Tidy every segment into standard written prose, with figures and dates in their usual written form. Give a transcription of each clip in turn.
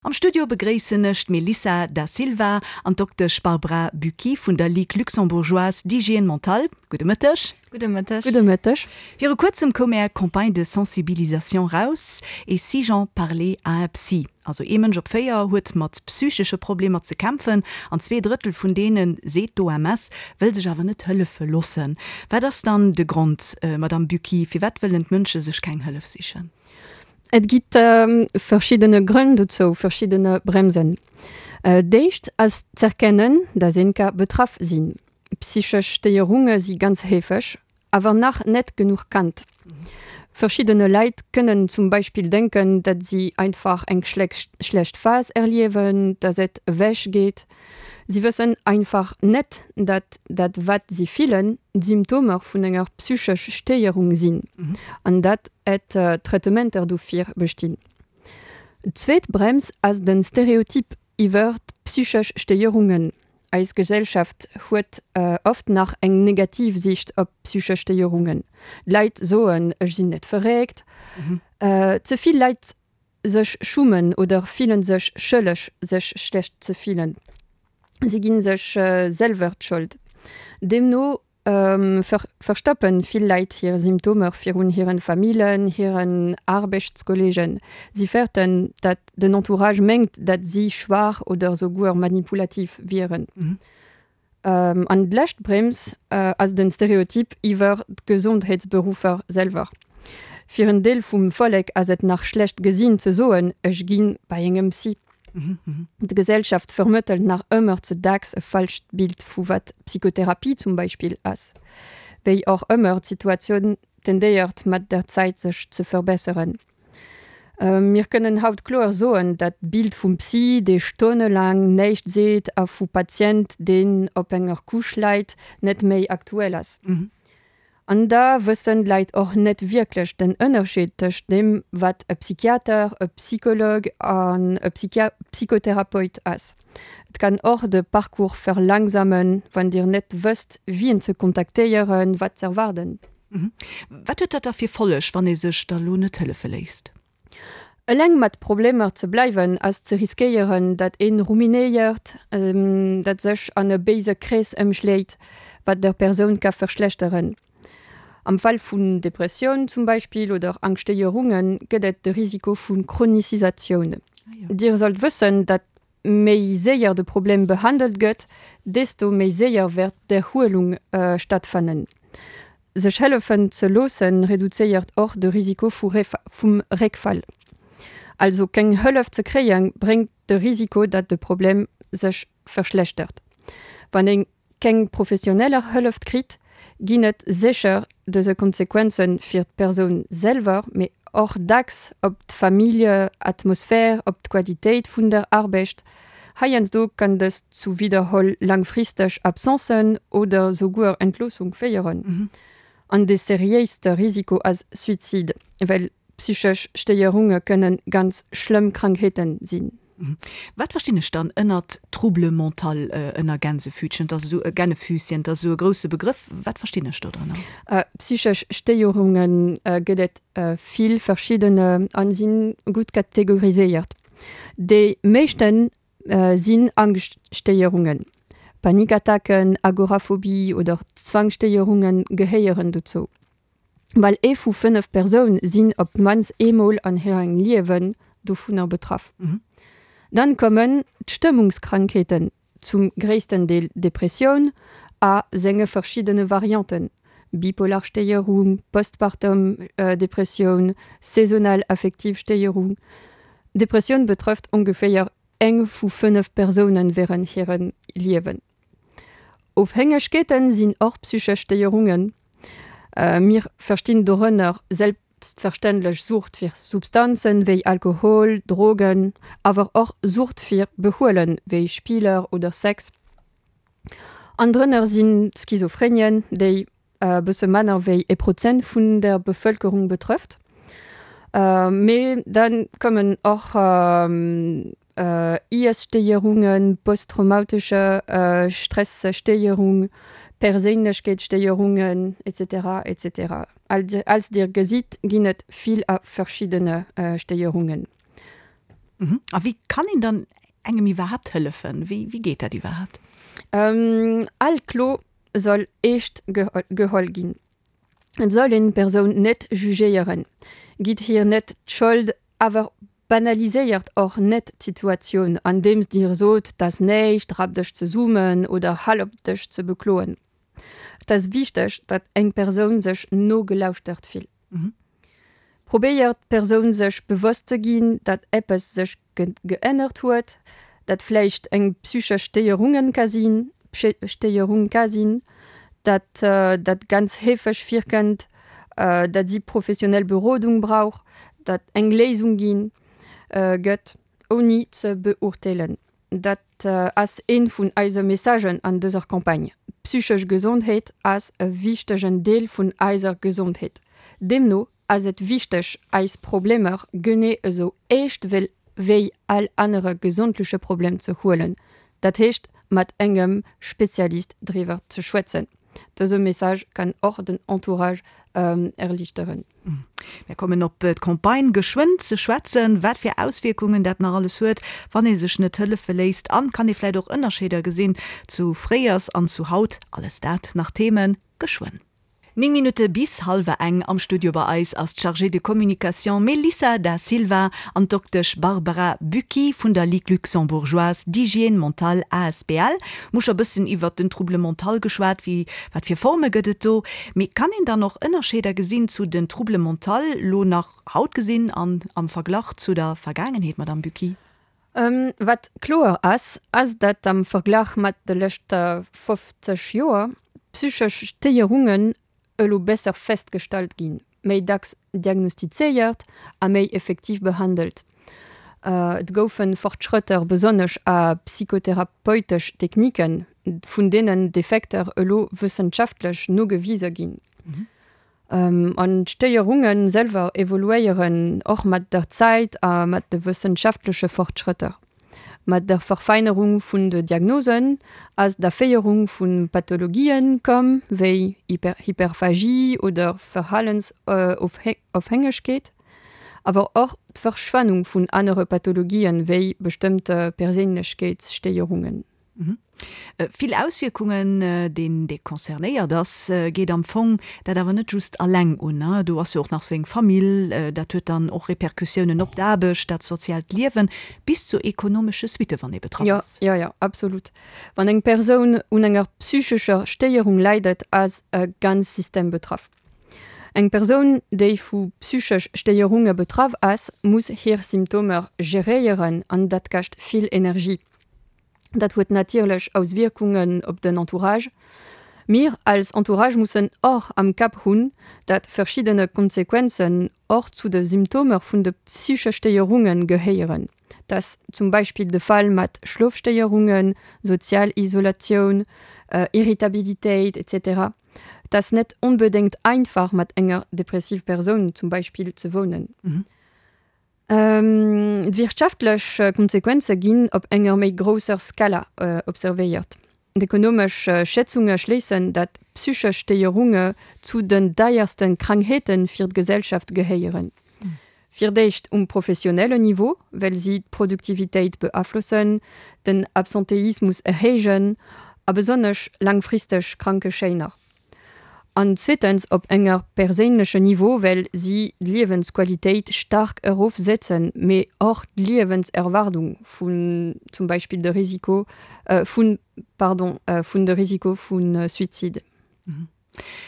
Am Studio begréissen ech d'Melissa Da Silva an d'Doktesch Barbara Bucchi vun der Ligue luxembourgeoise d'hygiène mentale. Gudde Mëtteg. Gudde Mëtteg. Gudde Mëtteg. Viru kuerzem koum Är Campagne de sensibilisation raus, Et si j'en parlais à un psy? Also ee Mënsch op 4 huet mat psychesche Problemer ze kämpfen an 2 Drëttel vun deenen, seet d'OMS, wëll sech awer net hëllefe loossen. Wat ass dann de Grond, Madamm Bucchi, firwat wëllen d'Mënsche sech keng Hëllef sichen? Et gitt verschiddene Grënn dozou, verschiddene Bremsen. D'éischt ass z'erkennen, dass een ka betraff sinn. Psychesch Stéierunge si ganz heefeg, awer nach net genuch kannt. Verschiddene Leit kënnen zum Beispill denken, datt si einfach eng schlecht Phas erliewen, dass et ewech geet. Si wëssen einfach net, datt dat wat si fillen, d'Symptomer vun enger psychesch Stéierung sinn an datt et Traitementer dofir bestinn. D'zweet Brems ass de Stereotyp iwwer d'psychesch Stéierungen. Eis Gesellschaft huet oft nach eng negativ Siicht op psychesch Stéierungen. D'Leit soen, ech sinn net verréckt. Ze vill Leit sech schummen oder fillen sech schëlleg sech schlecht ze fillen. Si ginn sech selwer d'Schold. Deemno verstoppen vill Leit hir Symptomer virun hiren Famillen, hiren Aarbechtskolleegen. Si fäerten, dat den Entourage mengt, dat si schwaach oder souguer manipulativ wieren. An d'lescht Brems ass den Stereotyp iwwer d'Gesondheetsberuffer selwer. Fir en Deel vum Vollek ass et nach schlecht gesinn ze soen, ech gi bei engem Psy. D'Gesellschaft vermëttelt nach ëmmer ze dacks e falscht Bild vu wat Psychotherapie zum Beispill ass. Wéi och ëmmer, d'Situatioun tendéiert mat der Zäit sech ze verbesseren. Mir kënnen haut kloer soen, dat Bild vum Psy, dee stonnelaang näischt seet a vu Patient, deen op enger Couche läit, net méi aktuell ass. An da wëssen d'Leit och net wierklech den Ënnerscheed tëscht deem, wat e Psychiater, e Psychologue an e Psychotherapeut ass. Et kann och de Parcours verlangsamen, wann Dir net wësst, wien ze kontaktéieren, wat z'erwaarden. Wat huet dat da fir Folleg, wann ee sech da lo net hëllefe léisst? Eleng mat Problemer ze bleiwen ass ze riskéieren, dat een ruminéiert, dat sech an e béise Krees ëmschléit, wat der Persoun ka verschlechteren. Am Fall vun Depressioun zum Beispill oder Angschtstéierunge gëtt et de Risiko vu Chronisisatioun. Dir sollt wëssen, dat méi séier de Problem behandelt gëtt, desto méi séier wäert d'Erhuelung stattfannen. Sech hëllefen ze loossen, reduzéiert och de Risiko vum Réckfall. Also keng Hëllef ze kréien, bréngt de Risiko, datt de Problem sech verschlechtert. Wann een keng professioneller Hëlleft kritt, ginn et sécher dëse Konsequenze fir d'Persoun selwer, mee och dacks op d'Familljeatmosphär, op d'Qualitéit vun der Arbecht. Heiansdo kann dëst zu widderholl langfristeg Absencen oder souguer Entloossung féieren. An de seriéiste Risiko ass Suizid, well Psychesch Stéierunge kënne ganz schlëmm Krankheeten sinn. Wat verstinn ech dann ënnert Trouble mental, ënner Gänsefütchen? Dat ass esou e Gännefüßchen, dat ass esou e grousse Begrëff. Wat verstinn ech do drënner? Psychesch Stéierunge gëtt et vill verschiddene a si gutt kategoriséiert. Déi meeschte sinn Angschtstéierungen. Panikattacken, Agoraphobie oder Zwangsstéierunge gehéieren dozou. Bal ee vu 5 Persoun sinn op d'mannst eemol an hirem Liewen dovunner betraff. Dann kommen d'Stëmmungskrankheeten, zum gréissten Deel Depressioun a senge verschiddene Varianten, bipolar Stéierung, postpartum Depressioun, saisonal affektiv Stéierung. Depressioun betrëfft ongeféier eng vu 5 Persounen wärend hirem Liewen. Ofhängegkeeten sinn och psychesch Stéierungen. Mir verstinn dorënner selbstverständlech Sucht fir Substanzen wéi Alkohol, Drogen, awer och Sucht fir Behuelen wéi Spiller oder Sex. An drënner sinn d'Schizophrenien, déi e bësse manner wéi e Prozent vun der Bevëlkerung betrëfft. Mee da kommen och Iesstéierungen, posttraumatesche Stresstéierung, Perséinlechkeetsstéierungen, etc. Etc. Als Dir gesitt, ginn et vill a verschiddene Stéierungen. A wéi kann een dann engem iwwerhaapt hëllefen? Wéi wéi geet dat iwwerhaapt? All Klo soll eescht geholl ginn. Et soll een d'Persoun net jugéieren, gitt hir net d'Schold, awer banaliséiert och net d'Situatioun, andeems Dir sot, 't ass näischt, rap dech zesummen oder hal op dech ze bekloen. Et ass wichteg, datt eng Persoun sech nogelauschtert fillt. Probéiert d'Persoun sech bewosst ze ginn, datt eppes sech geännert huet, dat vläicht eng psychesch Stéierungen ka sinn, Stéierung ka sinn, datt dat ganz heefeg virkënnt, datt si professionell Berodung brauch, datt eng Léisung ginn gëtt, ouni ze beurteelen. Dat ass ee vun eise Messagen an dëser Campagne. Psychesch Gesondheet ass e wichtegen Deel vun eiser Gesondheet. Deemno ass et wichteg, eis Problemer genee esou eescht wéi all anere gesondleche Problem ze huelen, dat heescht mat engem Spezialist driwwer ze schwätzen. Dëse Message kann och den Entourage erliichteren. Mir kommen op d'Campagne geschwënn ze schwätzen, wat fir Auswierkungen dat nach alles huet, wann ee sech net hëllefe léisst. An kann ee vläit och Ënnerscheeder gesinn zu fréiers an zu haut? Alles dat nach Themen geschwënn. 9 Minutte bis hallwer eng. Am Studio bei eis ass d'Chargée de communication Melissa Da Silva an d'Doktesch Barbara Bucchi vun der Ligue luxembourgeoise d'hygiène mentale asbl. Mir hu scho bëssen iwwert den Trouble mental geschwat, wéi Wat fir Forme gëtt et do? Mee kann een dann och Ënnerscheeder gesinn zu den Troubles mentaux lo nach haut gesinn an am Verglach zu der Vergaangenheet, Madamm Bucchi? Wat kloer ass, ass datt am Verglach mat de leschte 50 Joer d'psychesch Stéierungen elo besser festgestallt ginn, méi dacks diagnostizéiert a méi effektiv behandelt. Et goufe Fortschrëtter besonnesch a psychotherapeutesch Techniken, vun deenen d'Effekter elo wëssenschaftlech nogewise ginn. An d'Stéierunge selwer evoluéieren och mat der Zäit a mat de wëssenschaftleche Fortschrëtter. Mat der Verfeinerung vun de Diagnosen ass d'Aféierung vu Pathologien komm, wéi Hyperphagie oder Verhalensofhängegkeet, awer och d'Verschwennung vun anere Pathologien, wéi bestëmmte Perséinlechkeetsstéierungen. Vill Auswierkungen, deen dee concernéiert ass, geet am Fong dat awer net just alleng un. Do ass jo och nach seng Famill, dat huet dann och Repercussiounen op d'Aarbecht, dat soziaalt Liewen, bis zu ekonomesche Suitte wann ee betraff ass. Jo, jo, jo, absolut. Wann eng Persoun un enger psychescher Stéierung leidet, ass e ganz System betraff. Eng Persoun, déi vu psychesch Stéierunge betraff ass, muss hir Symptomer geréieren an dat kascht vill Energie. Dat huet natierlech Auswierkungen op den Entourage. Mir als Entourage mussen och am Kapp hunn, dat verschiddene Konsequenzen och zu de Symptomer vun de psychesch Stéierunge gehéieren. Dat ass zum Beispill de Fall mat Schlofstéierungen, sozial Isolatioun, Irritabilitéit, etc. Et ass net onbedéngt einfach mat enger depressiv Persoun zum Beispill ze wounen. D'wirtschaftlech Konsequenze ginn op enger méi grousser Skala observéiert. D'ekonomesch Schätzunge schléissen, datt psychesch Stéierunge zu den deierste Krankheete fir d'Gesellschaft gehéieren. Fir d'éischt um professionellen Niveau, well si d'Produktivitéit beaflossen, den Absenteismus erhéijen a besonnesch laangfristeg Krankeschäiner. An zweetens op enger perséinlechen Niveau, well si d'Liewensqualitéit staark erofsetzen, mee och d'Liewenserwaardung vun zum Beispill de Risiko vun, pardon, vun de Risiko vu Suizid.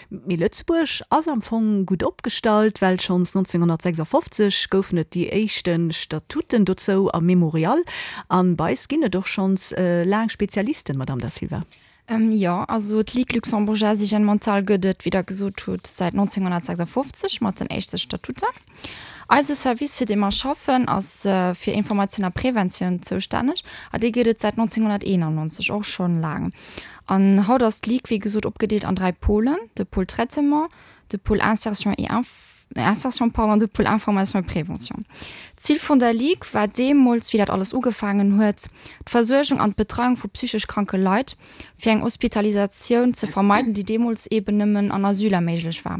Mee Lëtzebuerg ass am Fong gutt opgestallt, well schonns 1956 goufen et déi éischte Statuten dozou am Memorial. An bei eis ginn et och schonns laang Spezialisten, Madamm Da Silva. Jo, also d'Ligue luxembourgeoise d'hygiène mentale gëtt et, wéi Der gesot hutt, säit 1956 mat den éischte Statuter. Eise Service, fir dee mer schaffen, ass fir Informatioun a Preventioun zoustänneg a dee gëtt et säit 1991, och schonn laang. An haut ass d'Ligue, wéi gesot, opgedeelt an 3 Pôlen, de Pôle Traitement, de Pôle Insertion et Insertion, pardon, de Pôle Information et Prévention. D'Zil vun der Ligue war deemools, wéi dat alles ugefaangen huet, d'Versuergung an d'Betreiung vu psychesch kranke Leit, fir eng Hospitalisatioun ze vermeiden, déi deemools eeben nëmmen an Asyler méiglech war.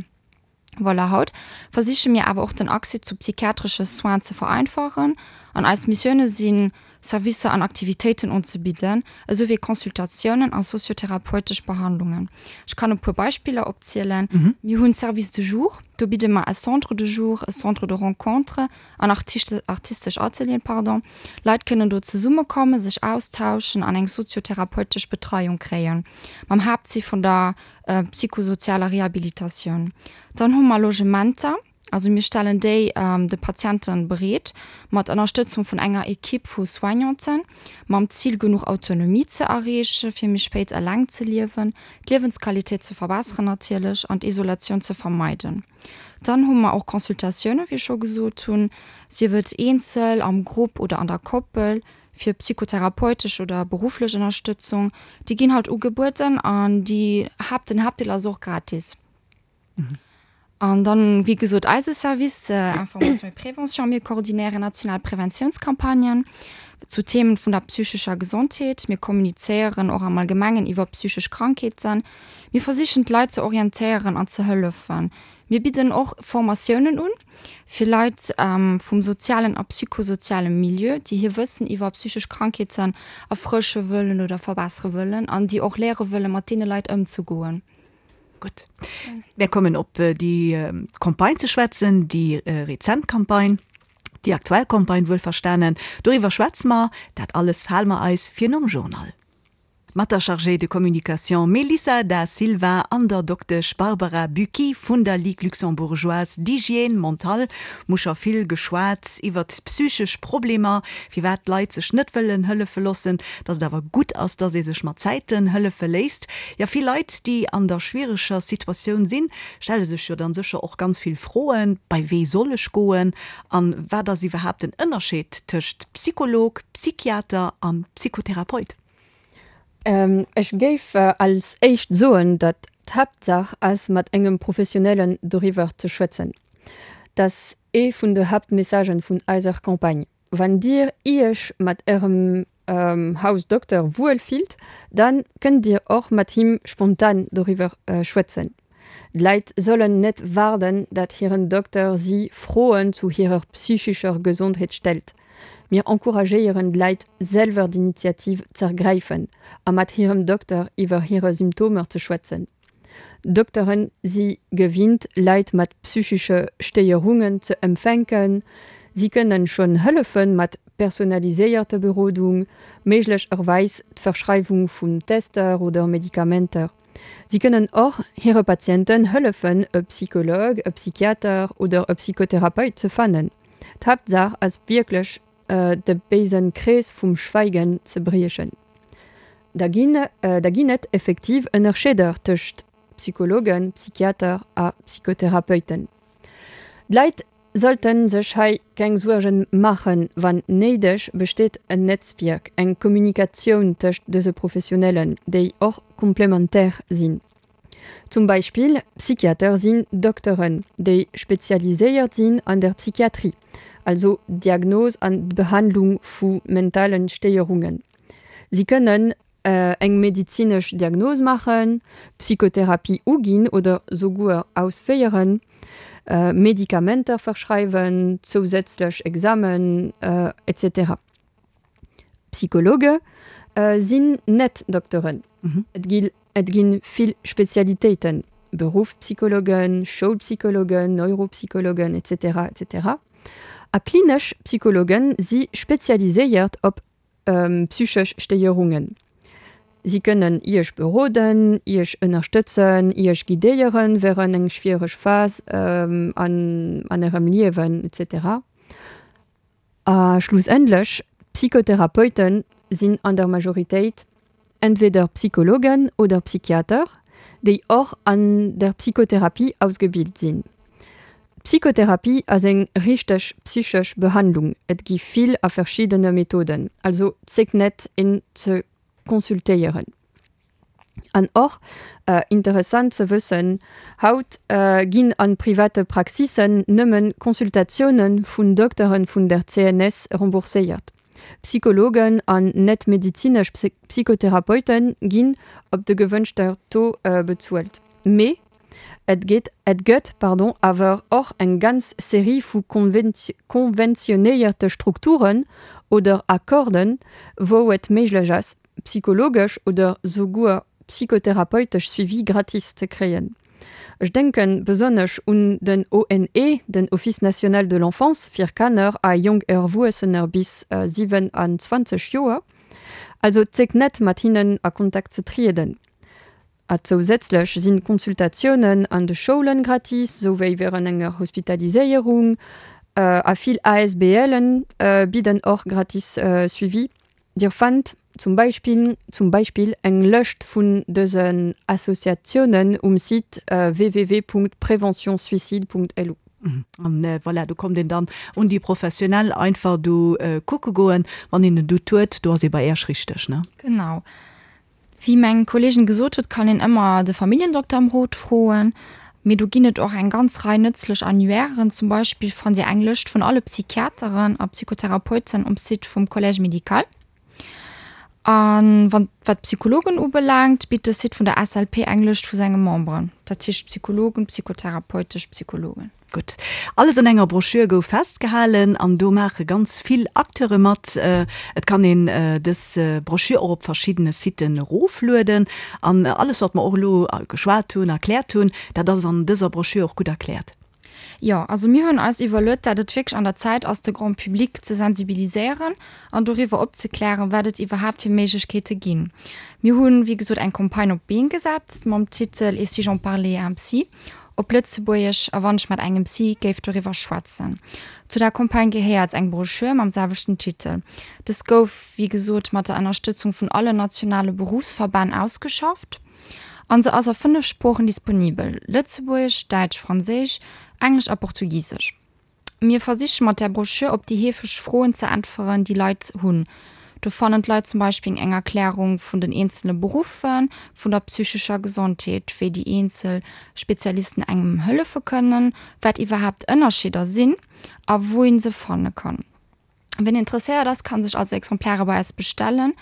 Voilà, haut versiche mir awer och den Accès zu psychiatresche Soins ze vereinfachen an eis Missioune sinn, Servicer an Aktivitéiten unzebidden, esou wéi Consultatiounen a soziotherapeutesch Behandlungen. Ech kann e puer Beispiller opzielen, Mir hunn Service de jour, do bidde mer e Centre de jour, e Centre de rencontre an artistesch Atelieren, pardon. Leit kënnen do zesummekommen, sech austauschen an eng soziotherapeutesch Betreiung kréien, mam Haaptzil vun der psychosozialer Rehabilitatioun. Dann hu mer Logementer, also mir stellen déi de Patiente bereet, mat Ënnerstëtzung vun enger Equipe vu Soignanten, mam Zil genuch Autonomie ze erreeche fir méi spéit eleng ze liewen, d'Liewensqualitéit ze verbesseren natierlech an d'Isolatioun ze vermeiden. Dann hu mer och Consultatiounen, wéi ech scho gesot hunn, sief et eenzel, am Grupp oder an der Koppel, fir psychotherapeutesch oder berufflech Ënnerstëtzung, déi ginn halt ugebueden an déi Haapt, den Haaptdeel ass och gratis. An dann, wéi gesot, eise Service Information et Prévention, mir koordinéieren national Preventiounscampagnen zu Themen vun der psychescher Gesondheet. Mir kommunizéieren och am Allgemengen iwwer psychesch Krankheeten. Mir versichen d'Leit ze orientéieren an ze hëllefen. Mir bidden och Formatiounen un. Fir Leit vum sozialen a psychosoziale Milieu, déi hir Wëssen iwwer psychesch Krankheeten erfrësche wëllen oder verbessere wëllen an déi och léiere wëllen, mat deene Leit ëmzegoen. Gutt, mär kommen op déi Campagne ze schwätzen, déi rezent Campagne, déi aktuell Campagne wuelverstanen. Doriwwer schwätze mer, dat alles fale mer eis fir nom Journal. Mat der Chargée de communication Melissa Da Silva an der Doktesch Barbara Bucchi vun der Ligue luxembourgeoise d'hygiène mentale hu scho vill geschwat iwwert psychesch Problemer, firwat d'Leit sech net wëllen hëllefe loossen, dass et awer gutt ass, dass ee sech mat Zäiten hëllefe léisst. Jo, vill Leit, déi an der schwiereger Situatioun sinn, stelle sech jo dann sécher och ganz vill Froen, Bei wee soll ech goen an wat ass iwwerhaapt den Ënnerscheed tëscht Psycholog, Psychiater an Psychotherapeut? Ech géif als éischt soen, datt d'Haaptsaach ass, mat engem Professionellen doriwwer ze schwätzen. Dat ass ee vun de Haaptmessagen vun eiser Campagne. Wann Dir Iech mat Ärem Hausdokter wuel fillt, da kënnt Dir och mat him spontan doriwwer schwätzen. D'Leit sollen net waarden, datt hiren Dokter si Froen zu hirer psychescher Gesondheet stellt. Mir encouragéieren d'Leit selwer d'Initiativ z'ergräifen a mat hirem Dokter iwwer hire Symptomer ze schwätzen. Dokteren si gewinnt Leit mat psychesche Stéierungen ze empfänken. Si kënnen schonn hëllefe mat personaliséierter Berodung, méiglecherweis d'Verschreiwung vun Tester oder Medikamenter. Si kënnen och hire Patienten hëllefen e Psycholog, e Psychiater oder e Psychotherapeut ze fannen. D'Haaptsaach ass wierklech de béisen Krees vum Schweigen ze briechen. Da ginn da ginn et effektiv Ënnerscheeder tëscht Psychologen, Psychiater a Psychotherapeuten. D'Leit sollte sech hei keng Suergen maachen, wann néideg besteet en Netzwierk, eng Kommunikatioun tëscht dëse Professionellen, déi och komplementaire sinn. Zum Beispill Psychiater sinn Dokteren, déi spezialiséiert sinn an der Psychiatrie, also d'Diagnos an d'Behandlung vu mentale Stéierungen. Si kënnen eng medizinesch Diagnos maachen, Psychotherapie uginn oder souguer ausféieren, Medikamenter verschreiwen, zousätzlech Examen, etc. Psychologe sinn net Dokteren. Et gi et gi vill Spezialitéiten, Beruffspsychologen, Schoulpsychologen, Neuropsychologen, etc. Etc. A klinesch Psychologe si spezialiséiert op psychesch Stéierungen. Si kënnen Iech beroden, Iech ënnerstëtzen, Iech guidéieren wärend eng schwiereg Phas an Ärem Liewen, etc. A schlussendlech, Psychotherapeute sinn an der Majoritéit entweder Psychologen oder Psychiater, déi och an der Psychotherapie ausgebilt sinn. D'Psychotherapie ass eng richteg psychesch Behandlung, et gi vill a verschiddene Methoden, also zéckt net een ze consultéieren. An och interessant ze wëssen, haut ginn a private Praxissen nëmmen Consultatioune vun Dokteren vun der CNS rembourséiert. Psychologen an net-medizinesch Psychotherapeute ginn op de gewënschter Taux bezuelt. Mee. Et geet, et gëtt, pardon, awer och eng ganz Serie vu konventionéierte Strukturen oder Accorden, wou et méiglech ass, psychologesch oder souguer psychotherapeutesch Suivi gratis ze kréien. Ech denke besonnesch un den ONE, den Office national de l'enfance, fir Kanner a jonk Erwuessener bis 27 Joer. Also zéckt net, mat hinnen a Kontakt ze trieden. A zousätzlech sinn d'Consultatiounen an de Schoulen gratis, souwéi wärend enger Hospitaliséierung. A vill ASBLen bidden och gratis Suivi. Dir fannt zum Beispill zum Beispill eng Lëscht vun dësen Associatiounen um Site www.preventionsuicide.lu. An voilà, do kommt een dann un déi Professionell einfach do kucke goen, wann een en Doute huet, do ass ee bei Äerch richteg, ne? Genau. Wéi meng Kolleegin gesot huet, kann een ëmmer de Familljendokter ëm Rot froen. Mee do ginn et och eng ganz Rei nëtzlech Annuairen. Zum Beispill fannt Dir eng Lëscht vun alle Psychiateren a Psychotherapeuten um Site vum Collège médical. A wann wat d'Psychologen ubelaangt, bitt de Site vun der SLP eng Lëscht vu senge Memberen, dat heescht Psychologen, psychotherapeutesch Psychologen. Gutt, alles an enger Broschür gouf festgehalen an do maache ganz vill Acteure mat. Et kann een dës Broschür och op verschiddene Siten eroflueden. An alles, wat mer och elo geschwat hunn, erkläert hunn, dat ass an dëser Broschür och gutt erkläert. Jo, also mir hunn eis iwwerluet, dat et wierklech an der Zäit ass, de Grand public ze sensibiliséieren an doriwwer opzeklären, wat et iwwerhaapt fir Méiglechkeete ginn. Mir hunn, wéi gesot, eng Campagne op d'Been gesat mam Titel Et si j'en parlais à un psy? Op Lëtzebuergesch, A wann ech mat engem Psy géif doriwwer schwätzen. Zu der Campagne gehéiert eng Broschür mam selwechten Titel. Dës gouf, wéi gesot, mat der Ënnerstëtzung vun allen nationale Beruffsverbänn ausgeschafft an se ass a 5 Sproochen disponibel, Lëtzebuergesch, Däitsch, Franséisch, Englesch a Portugisesch. Mir versiche mat där Broschür op déi heefeg Froen ze äntweren, déi Leit hunn. Do fannen d'Leit zum Beispill eng Erklärung vun den eenzele Beruffe vun der psychescher Gesondheet, wéi déi eenzel Spezialisten engem hëllefe kënnen, wat iwwerhaapt Ënnerscheeder sinn a wou ee se fanne kann. Wien interesséiert ass, kann sech also Exemplare bei eis bestellen,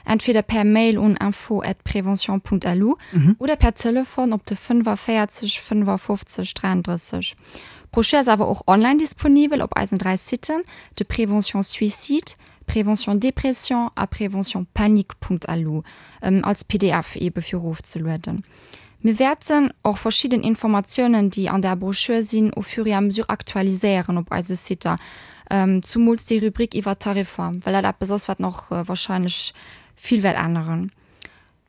entweder per Mail un info at prévention Punkt lu oder per Telefon op de 45 55 33. D'Brochure ass awer och online disponibel op eisen 3 Siten, de Prévention Suicide, Prévention Dépression a Prévention Panique Punkt lu, als pdf eebe fir erofzelueden. Mir wäerten och verschidden Informatiounen, déi an där Broschür sinn, au fur et à mesure aktualiséieren op eise Siter, zumools déi Rubrik iwwer d'Tariffer, well dat eppes ass, wat nach wahrscheinlech vill wäert änneren.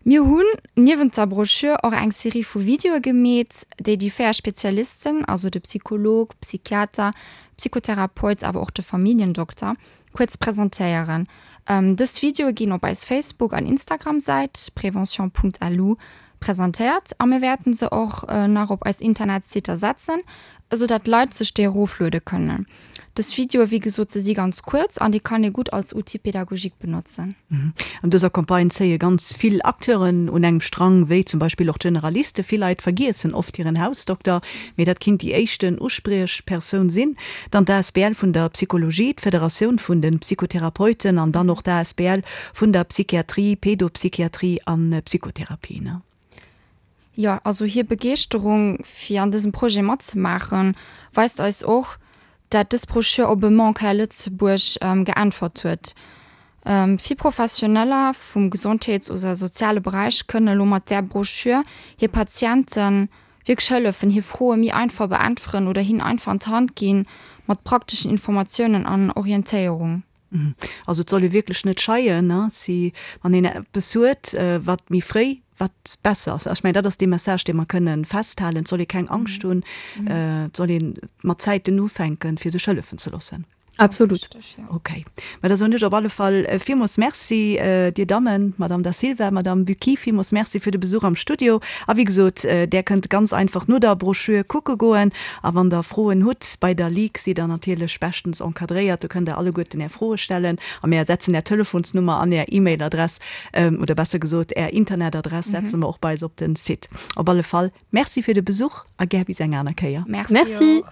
Mir hunn niewent der Broschür och eng Serie vu Videoe gemeet, déi déi 4 Spezialisten, also de Psycholog, Psychiater, Psychotherapeut awer och de Familljendokter, kuerz presentéieren. Dës Videoe ginn op eis Facebook an Instagram-Säit prévention.lu presentéiert a mir wäerten se och nach op eis Internetsitter setzen, esou dat d'Leit sech déi erofluede kënnen. Dës Videoe, wéi gesot, se si ganz kuerz an déi kann ee gutt als Outil pédagogique benotzen. An dëser Campagne zéie ganz vill Acteuren un engem Strang, wéi zum Beispill och d'Generaliste. Vill Leit vergiessen oft hiren Hausdokter, mee dat kinnt déi éischten Uspriechpersoun sinn. Dann d'ASBL vun der Psychologie, d'Federatioun vun de Psychotherapeuten an dann och d'ASBL vun der Psychiatrie, Pédopsychiatrie an Psychotherapie. Jo, also hir Begeeschterung fir an dësem Projet matzemaachen, weist eis och, dat dës Broschür op e Manque hei a Lëtzebuerg geäntwert huet. Vill Professioneller vum Gesondheets oder soziale Beräich kënnen elo mat där Broschür hir Patienten wierklech hëllefen, hir Froe méi einfach beäntweren oder hinnen einfach an d'Hand ginn mat prakteschen Informatiounen an Orientéierung. Also et soll ee wierklech net scheien, si wann een eppes huet, wat méi fréi, wat besser ass. Ech mengen, dat ass dee Message, dee mer kënne festhalen. Et soll ee keng Angscht hunn, et soll ee mat Zäiten ufänken, fir sech hëllefen ze loossen. Absolut. Ok. Mä da soen ech op alle Fall villmools Merci, Dir Dammen, Madame Da Silva, Madame Bucchi, villmools Merci fir de Besuch am Studio. A wéi gesot, Där kënnt ganz einfach no der Broschür kucke goen. A wann Der Froen hutt, bei der Ligue sidd Der natierlech beschtens encadréiert, do kënnt Der alleguerten Är Froe stellen a mär setzen Är Telefonsnummer an Är E-Mail-Adress, oder besser gesot Är Internetadress setze mer och bei eis op den Site. Op alle Fall Merci fir de Besuch a gär bis eng aner Kéier. Merci.